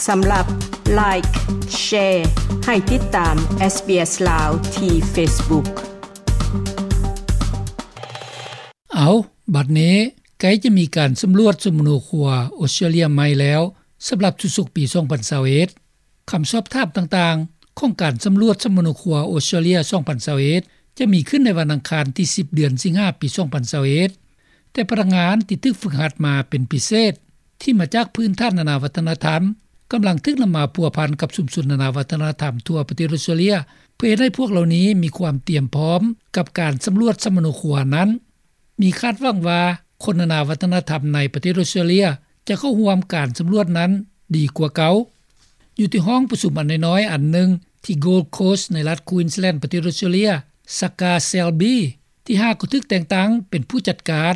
ສຳລັບ Like, Share ໃຫ້ຕິດຕາມ SBS ລາວ ທີ່ Facebook. ເອົາ, ບັດນີ້ໃກ້ຈະມີການສຳຫຼວດສຳມະໂນຄົວອົດສະຕຣາເລຍໃໝ່ແລ້ວ ສຳລັບຊຸດສົກປີສອງພັນຊາວເອັດ. ຄຳສອບຖາມຕ່າງໆຂອງການສຳຫຼວດສຳມະໂນຄົວອົດສະຕຣາເລຍສອງພັນຊາວເອັດ ຈະມີຂຶ້ນໃນວັນອັງຄານທີສິບ ເດືອນສິງຫາ ປີສອງພັນຊາວເອັດ. ແຕ່ພະນັກງານທີ່ຖືກຝຶກຫັດມາເປັນພິເສດ ທີ່ມາຈາກພື້ນຖານນານາວັດທະນະທຳ ກຳລັງຖືກນຳມາພົວພັນກັບຊຸມຊົນນານາວັດທະນະທຳທົ່ວປະເທດອົດສະຕຣາເລຍ ເພື່ອເຮັດໃຫ້ພວກເຫຼົ່ານີ້ມີຄວາມຕຽມພ້ອມກັບການສຳຫຼວດສຳມະໂນຄົວນັ້ນ. ມີຄາດຫວັງວ່າຄົນນານາວັດທະນະທຳໃນປະເທດອົດສະຕຣາເລຍຈະເຂົ້າຮ່ວມການສຳຫຼວດນັ້ນດີກວ່າເກົ່າ. ຢູ່ທີ່ຫ້ອງປະຊຸມອັນນ້ອຍໆອັນໜຶ່ງທີ່ Gold Coast ໃນລັດ Queensland ປະເທດອົດສະຕຣາເລຍ, Saka Selby ທີ່ຫາກໍຖືກແຕ່ງຕັ້ງເປັນຜູ້ຈັດການ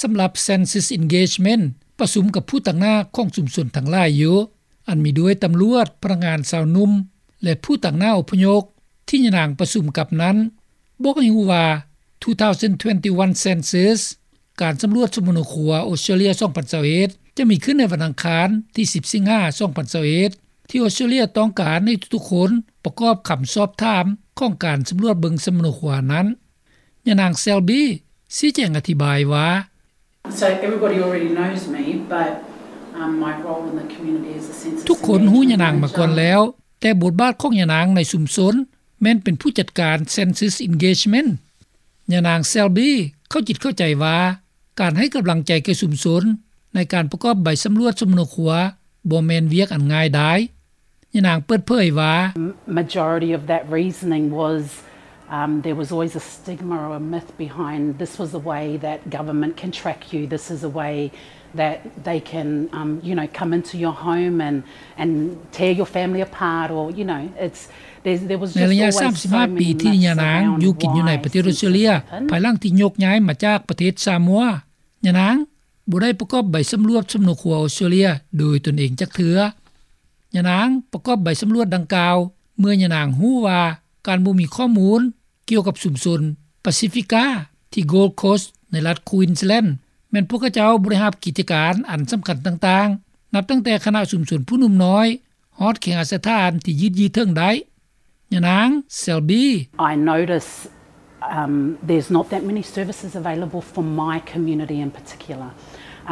ສຳລັບ Census Engagement ປະຊຸມກັບຜູ້ຕາງໜ້າຂອງຊຸມຊົນທັງຫຼາຍຢູ່ ອັນມີດ້ວຍຕຳຫຼວດ, ພະນັກງານຊາວໜຸ່ມ ແລະ ຜູ້ຕາງໜ້າອົບພະຍົບ ທີ່ຍານາງປະຊຸມກັບນັ້ນ ບອກໃຫ້ຮູ້ວ່າ two thousand twenty-one Census ການສຳຫຼວດສຳມະໂນຄົວອົດສະຕຣາເລຍສອງພັນຊາວເອັດ ຈະມີຂຶ້ນໃນວັນອັງຄານທີສິບ ສິງຫາ ສອງພັນຊາວເອັດ ທີ່ອົດສະຕຣາເລຍຕ້ອງການໃຫ້ທຸກໆຄົນປະກອບຄຳສອບຖາມຂອງການສຳຫຼວດເບິ່ງສຳມະໂນຄົວນັ້ນ. ຍານາງ Selby ຊີ້ແຈງອະທິບາຍວ່າ So everybody already knows me, but, um, my role in the community as a census engagement manager. ທຸກຄົນຮູ້ຍານາງມາກ່ອນແລ້ວ, ແຕ່ບົດບາດຂອງຍານາງໃນຊຸມຊົນແມ່ນເປັນຜູ້ຈັດການ Census Engagement. ຍານາງ Selby ເຂົ້າຈິດເຂົ້າໃຈວ່າ ການໃຫ້ກຳລັງໃຈແກ່ຊຸມຊົນໃນການປະກອບໃບສຳຫຼວດສຳມະໂນຄົວ ບໍ່ແມ່ນວຽກອັນງ່າຍດາຍ. ຍານາງເປີດເຜີຍວ່າ Majority of that reasoning was, um, there was always a stigma or a myth behind, this was a way that government can track you, this is a way that they can, um, you know, come into your home and, and tear your family apart, or, you know, it's, there's, there was just always so many myths around why census happen. ໃນໄລຍະສາມສິບຫ້າປີທີ່ຍານາງຢູ່ກິນຢູ່ໃນປະເທດອົດສະຕຣາເລຍ ພາຍຫຼັງທີ່ຍົກຍ້າຍມາຈາກປະເທດຊາມົວ, ຍານາງບໍ່ໄດ້ປະກອບໃບສຳຫຼວດສຳມະໂນຄົວອົດສະຕຣາເລຍໂດຍຕົນເອງຈັກເທື່ອ. ຍານາງປະກອບໃບສຳຫຼວດດັ່ງກ່າວ ເມື່ອຍານາງຮູ້ວ່າການບໍ່ມີຂໍ້ມູນກ່ຽວກັບຊຸມຊົນປາຊີຟິກາ ທີ່ Gold Coast ໃນລັດ Queensland ແມ່ນພວກເຂົາເຈົ້າບໍ່ໄດ້ຮັບກິດຈະການອັນສຳຄັນຕ່າງໆ ນັບຕັ້ງແຕ່ຄະນະຊຸມຊົນຜູ້ໜຸ່ມນ້ອຍ ຮອດເຄຫະສະຖານທີ່ຍືດເຍື້ອເຖິງໄດ້. ຍານາງ Selby. I notice, um, there's not that many services available for my community in particular.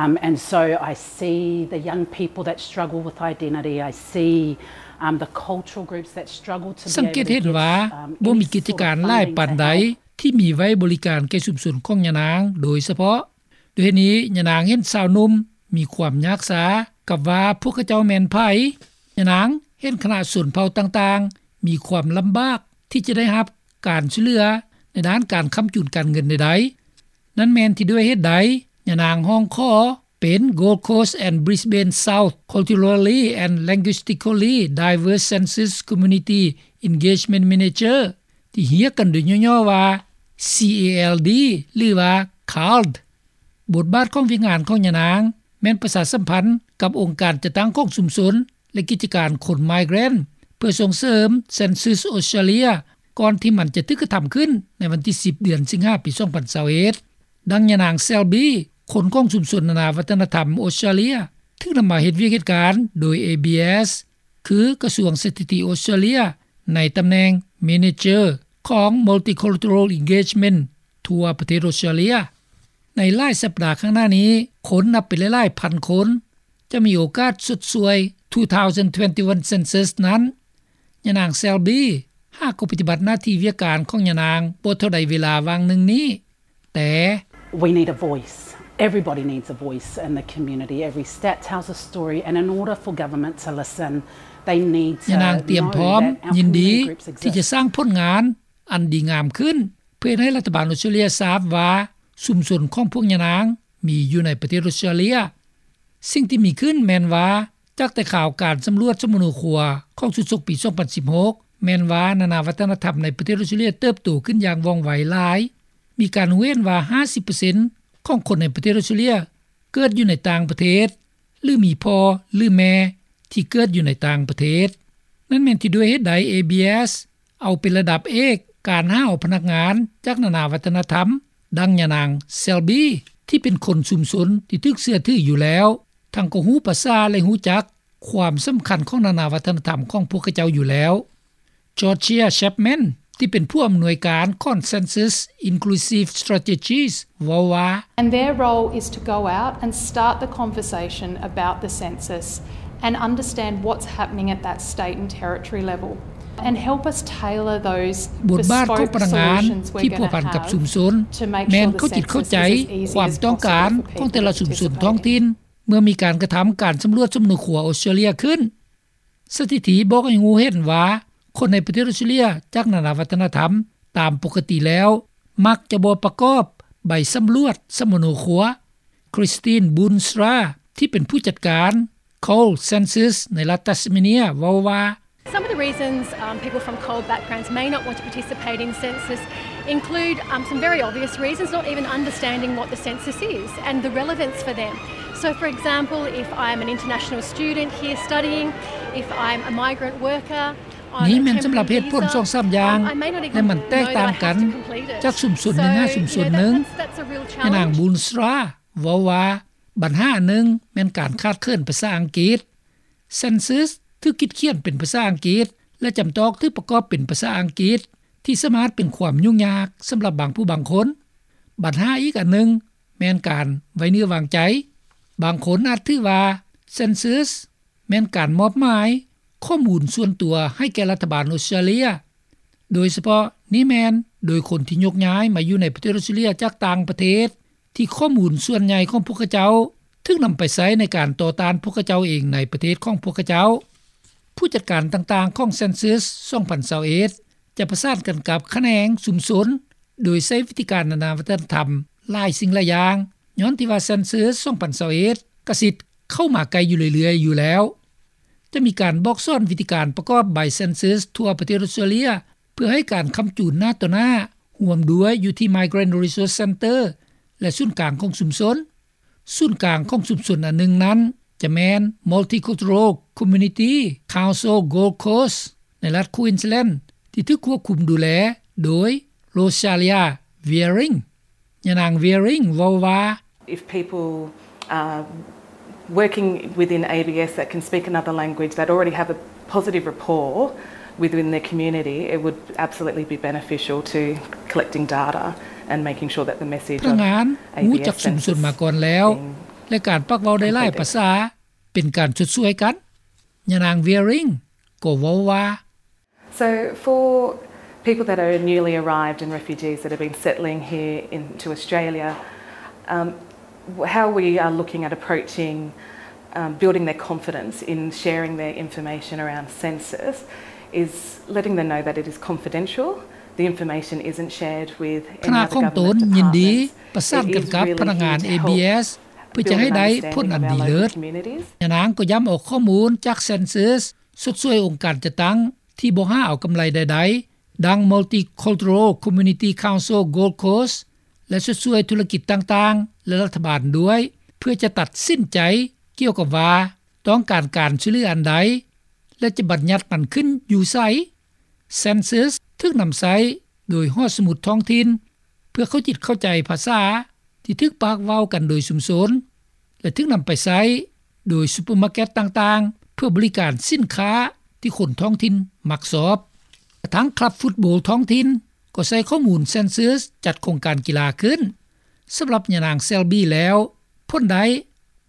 Um, and so I see the young people that struggle with identity. I see, um, the cultural groups that struggle to be able to get, um, any sort of funding. ສັງເກດເຫັນວ່າບໍ່ມີກິດຈະການຫຼາຍປານໃດທີ່ມີໄວ້ບໍລິການແກ່ຊຸມຊົນຂອງຍານາງໂດຍສະເພາະ. ດ້ວຍເຫດນີ້ ຍານາງເຫັນຊາວໜຸ່ມມີຄວາມຍາກຊາກັບວ່າພວກເຂົາເຈົ້າແມ່ນໃຜ. ຍານາງເຫັນຄະນະຊົນເຜົ່າຕ່າງໆມີຄວາມລຳບາກທີ່ຈະໄດ້ຮັບການຊ່ວຍເຫຼືອໃນດ້ານການຄ້ຳຈູນການເງິນໃດໆ. ນັ້ນແມ່ນທີ່ດ້ວຍເຫດໃດ ຍານາງຮ້ອງຂໍເປັນ Gold Coast and Brisbane South Culturally and Linguistically Diverse Census Community Engagement Manager ທີ່ຮຽກກັນໂດຍຫຍໍ້ໆວ່າ C A L D ຫຼືວ່າ CALD. ບົດບາດຂອງວຽກງານຂອງຍານາງແມ່ນປະຊາສຳພັນກັບອົງການຈັດຕັ້ງຂອງຊຸມຊົນ ແລະ ກິດຈະການຄົນ migrant ເພື່ອສົ່ງເສີມ Census Australia ກ່ອນທີ່ມັນຈະຖືກກະທຳຂຶ້ນໃນວັນທີສິບ ເດືອນສິງຫາ ປີສອງພັນຊາວເອັດ. ດັ່ງຍານາງ Selby ຄົນຂອງຊຸມຊົນນານາວັດທະນະທຳອົດສະຕຣາເລຍ ຖືກນຳມາເຮັດວຽກເຮັດການໂດຍ A B S ຄືກະຊວງສະຖິຕິອົດສະຕຣາເລຍ ໃນຕຳແໜ່ງ Manager ຂອງ Multicultural Engagement ທົ່ວປະເທດອົດສະຕຣາເລຍ. ໃນຫຼາຍສັບດາຂ້າງໜ້ານີ້, ຄົນນັບເປັນຫຼາຍໆພັນຄົນຈະມີໂອກາດຊົດຊ່ວຍ two thousand twenty-one Census ນັ້ນ. ຍານາງ Selby ຫາກໍປະຕິບັດໜ້າທີ່ວຽກການຂອງຍານາງບໍ່ເທົ່າໃດເວລາຫວ່າງໜຶ່ງນີ້, ແຕ່ We need a voice. Everybody needs a voice in the community. Every stat tells a story, and in order for government to listen, they need to know that our community groups exist. ຍານາງຕຽມພ້ອມ, ຍິນດີທີ່ຈະສ້າງຜົນງານອັນດີງາມຂຶ້ນ ເພື່ອເຮັດໃຫ້ລັດຖະບານອົດສະຕຣາເລຍຊາບວ່າຊຸມຊົນຂອງພວກຍານາງມີຢູ່ໃນປະເທດອົດສະຕຣາເລຍ. ສິ່ງທີ່ມີຂຶ້ນແມ່ນວ່າ ຈາກແຕ່ຂ່າວການສຳຫຼວດສຳມະໂນຄົວຂອງຊຸດສົກປີສອງພັນສິບຫົກ ແມ່ນວ່ານານາວັດທະນະທຳໃນປະເທດອົດສະຕຣາເລຍເຕີບໂຕຂຶ້ນຢ່າງວ່ອງໄວຫຼາຍ. ມີການຮູ້ເຫັນວ່າຫ້າສິບເປີເຊັນຂອງຄົນໃນປະເທດອົດສະຕຣາເລຍເກີດຢູ່ໃນຕ່າງປະເທດ ຫຼື ມີພໍ່ ຫຼື ແມ່ທີ່ເກີດຢູ່ໃນຕ່າງປະເທດ. ນັ້ນແມ່ນທີ່ດ້ວຍເຫດໃດ A B S ເອົາເປັນລະດັບເອກການຫາເອົາພະນັກງານຈາກນານາວັດທະນະທຳ, ດັ່ງຍານາງ Selby ທີ່ເປັນຄົນຊຸມຊົນທີ່ຖືກເຊື່ອຖືຢູ່ແລ້ວ, ທັງກໍຮູ້ພາສາ ແລະ ຮູ້ຈັກ ຄວາມສຳຄັນຂອງນານາວັດທະນະທຳຂອງພວກເຂົາເຈົ້າຢູ່ແລ້ວ. Georgia Chapman ທີ່ເປັນຜູ້ອຳນວຍການ Consensus Inclusive Strategies ເວົ້າວ່າ And their role is to go out and start the conversation about the census and understand what's happening at that state and territory level and help us tailor those ບົດບາດຂອງພະນັກງານທີ່ພົວພັນກັບຊຸມຊົນ ແມ່ນເຂົາຈິດເຂົ້າໃຈຄວາມຕ້ອງການຂອງແຕ່ລະຊຸມຊົນທ້ອງຖິ່ນ ເມື່ອມີການກະທຳການສຳຫຼວດສຳມະໂນຄົວອອສເຕຣເລຍຂຶ້ນ. ສະຖິຕິບອກໃຫ້ຮູ້ເຫັນວ່າ ຄົນໃນປະເທດອອສເຕຣເລຍຈາກນານາວັດທະນະທຳ ຕາມປົກກະຕິແລ້ວ ມັກຈະບໍ່ປະກອບໃບສຳຫຼວດສຳມະໂນຄົວ. Christine Boonstra ທີ່ເປັນຜູ້ຈັດການ Cole Census ໃນລັດ Tasmania ເວົ້າວ່າ Some of the reasons, um, people from CALD backgrounds may not want to participate in census include, um, some very obvious reasons, not even understanding what the census is and the relevance for them. So, for example, if I'm an international student here studying, if I'm a migrant worker on a temporary visa, um, I may not even know that I have to complete it. ນີ້ແມ່ນສຳລັບເຫດຜົນສອງສາມຢ່າງ ແລະ ມັນແຕກຕ່າງກັນຈາກຊຸມຊົນໜຶ່ງຫາຊຸມຊົນໜຶ່ງ. So, you know, that, that's, that's a real challenge. ຍານາງ Boonstra ເວົ້າວ່າ ບັນຫາອັນໜຶ່ງແມ່ນການຂາດເຂີນພາສາອັງກິດ. Census ຖືກຄິດຂຽນເປັນພາສາອັງກິດ ແລະ ຈຳຕ້ອງຖືກປະກອບເປັນພາສາອັງກິດ ທີ່ສາມາດເປັນຄວາມຫຍຸ້ງຍາກສຳລັບບາງຜູ້ບາງຄົນ. ບັນຫາອີກອັນໜຶ່ງແມ່ນການໄວ້ເນື້ອວາງໃຈ. ບາງຄົນອາດຖືວ່າ Census ແມ່ນການມອບໝາຍຂໍ້ມູນສ່ວນຕົວໃຫ້ແກ່ລັດຖະບານອອສເຕຣເລຍ, ໂດຍສະເພາະນີ້ແມ່ນໂດຍຄົນທີ່ຍົກຍ້າຍມາຢູ່ໃນປະເທດອອສເຕຣເລຍຈາກຕ່າງປະເທດ ທີ່ຂໍ້ມູນສ່ວນໃຫຍ່ຂອງພວກເຂົາເຈົ້າຖືກນຳໄປໃຊ້ໃນການຕໍ່ຕ້ານພວກເຂົາເຈົ້າເອງໃນປະເທດຂອງພວກເຂົາເຈົ້າ. ຜູ້ຈັດການຕ່າງໆຂອງ Census ສອງພັນຊາວເອັດ ຈະປະສານກັນກັບຂະແໜງຊຸມຊົນ ໂດຍໃຊ້ວິທີການນານາວັດທະນະທຳຫຼາຍສິ່ງຫຼາຍຢ່າງ, ຍ້ອນທີ່ວ່າ Census ສອງພັນຊາວເອັດ ກະຊິເຂົ້າມາໃກ້ຢູ່ເລື້ອຍໆຢູ່ແລ້ວ. ຈະມີການບອກສອນວິທີການປະກອບໃບ Census ທົ່ວປະເທດອອສເຕຣເລຍ ເພື່ອໃຫ້ການຄ້ຳຈູນໜ້າຕໍ່ໜ້າ, ຮ່ວມດ້ວຍຢູ່ທີ່ Migrant Resource Centre ແລະ ສູນກາງຂອງຊຸມຊົນ. ສູນກາງຂອງຊຸມຊົນອັນໜຶ່ງນັ້ນ ຈະແມ່ນ Multicultural Community Council Gold Coast ໃນລັດ Queensland ທີ່ຖືກຄວບຄຸມດູແລໂດຍ Rosalia Wearing. ຍານາງ Wearing ເວົ້າວ່າ If people are working within A B S that can speak another language, that already have a positive rapport within their community, it would absolutely be beneficial to collecting data and making sure that the message of A B S census is clear. ພະນັກງານຮູ້ຈັກຊຸມຊົນມາກ່ອນແລ້ວ ແລະ ການປາກເວົ້າໄດ້ຫຼາຍພາສາເປັນການຊົດຊ່ວຍກັນ. ຍານາງ Wearing ກໍເວົ້າວ່າ So for people that are newly arrived and refugees that have been settling here into Australia, um, how we are looking at approaching, um, building their confidence in sharing their information around census is letting them know that it is confidential. The information isn't shared with any other government departments. ຄະນະຂອງຕົນຍິນດີປະສານກັນກັບພະນັກງານ A B S ເພື່ອຈະໃຫ້ໄດ້ຜົນອັນດີເລີດ. ຍານາງກໍຢ້ຳເອົາຂໍ້ມູນຈາກ Census ຊົດຊ່ວຍອົງການຈັດຕັ້ງທີ່ບໍ່ຫາເອົາກຳໄລໃດໆ ດັ່ງ Multicultural Community Council Gold Coast ແລະ ຊົດຊ່ວຍທຸລະກິດຕ່າງໆ ແລະ ລັດຖະບານດ້ວຍ ເພື່ອຈະຕັດສິນໃຈກ່ຽວກັບວ່າຕ້ອງການການຊ່ວຍເຫຼືອອັນໃດ ແລະ ຈະບັນຍັດມັນຂຶ້ນຢູ່ໃສ. Census ຖືກນຳໃຊ້ໂດຍຫໍສະໝຸດທ້ອງຖິ່ນ ເພື່ອເຂົ້າຈິດເຂົ້າໃຈພາສາທີ່ຖືກປາກເວົ້າກັນໂດຍຊຸມຊົນ ແລະ ຖືກນຳໄປໃຊ້ໂດຍຊຸບເປີມາເກັດຕ່າງໆ ເພື່ອບໍລິການສິນຄ້າທີ່ຄົນທ້ອງຖິ່ນມັກຊອບ. ກະທັ່ງຄລັບຟຸດໂບລທ້ອງຖິ່ນກໍໃຊ້ຂໍ້ມູນ Census ຈັດໂຄງການກິລາຂຶ້ນ. ສຳລັບຍານາງ Selby ແລ້ວ ຜົນໄດ້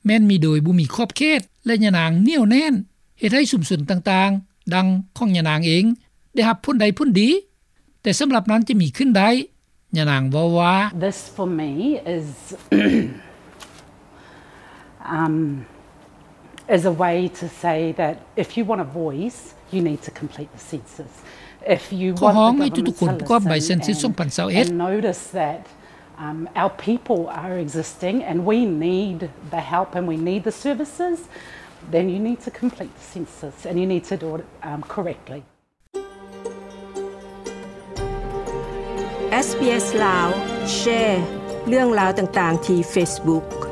ແມ່ນມີໂດຍບໍ່ມີຂອບເຂດ ແລະ ຍານາງໜຽວແໜ້ນເຮັດໃຫ້ຊຸມຊົນຕ່າງໆ ດັ່ງຂອງຍານາງເອງ ໄດ້ຮັບຜົນໄດ້ຜົນດີ. ແຕ່ສຳລັບນັ້ນຈະມີຂຶ້ນໄດ້, ຍານາງເວົ້າວ່າ This for me is, um, is a way to say that if you want a voice, you need to complete the census. If you want the government to listen and ຂໍຮ້ອງໃຫ້ທຸກໆຄົນປະກອບໃບ Census ສອງພັນຊາວເອັດ and notice that, um, our people are existing and we need the help and we need the services, then you need to complete the census and you need to do it, um, correctly. ເອສ ບີ ເອສ ລາວ ແຊເລື່ອງລາວຕ່າງໆທີ່ເຟສບຸກ.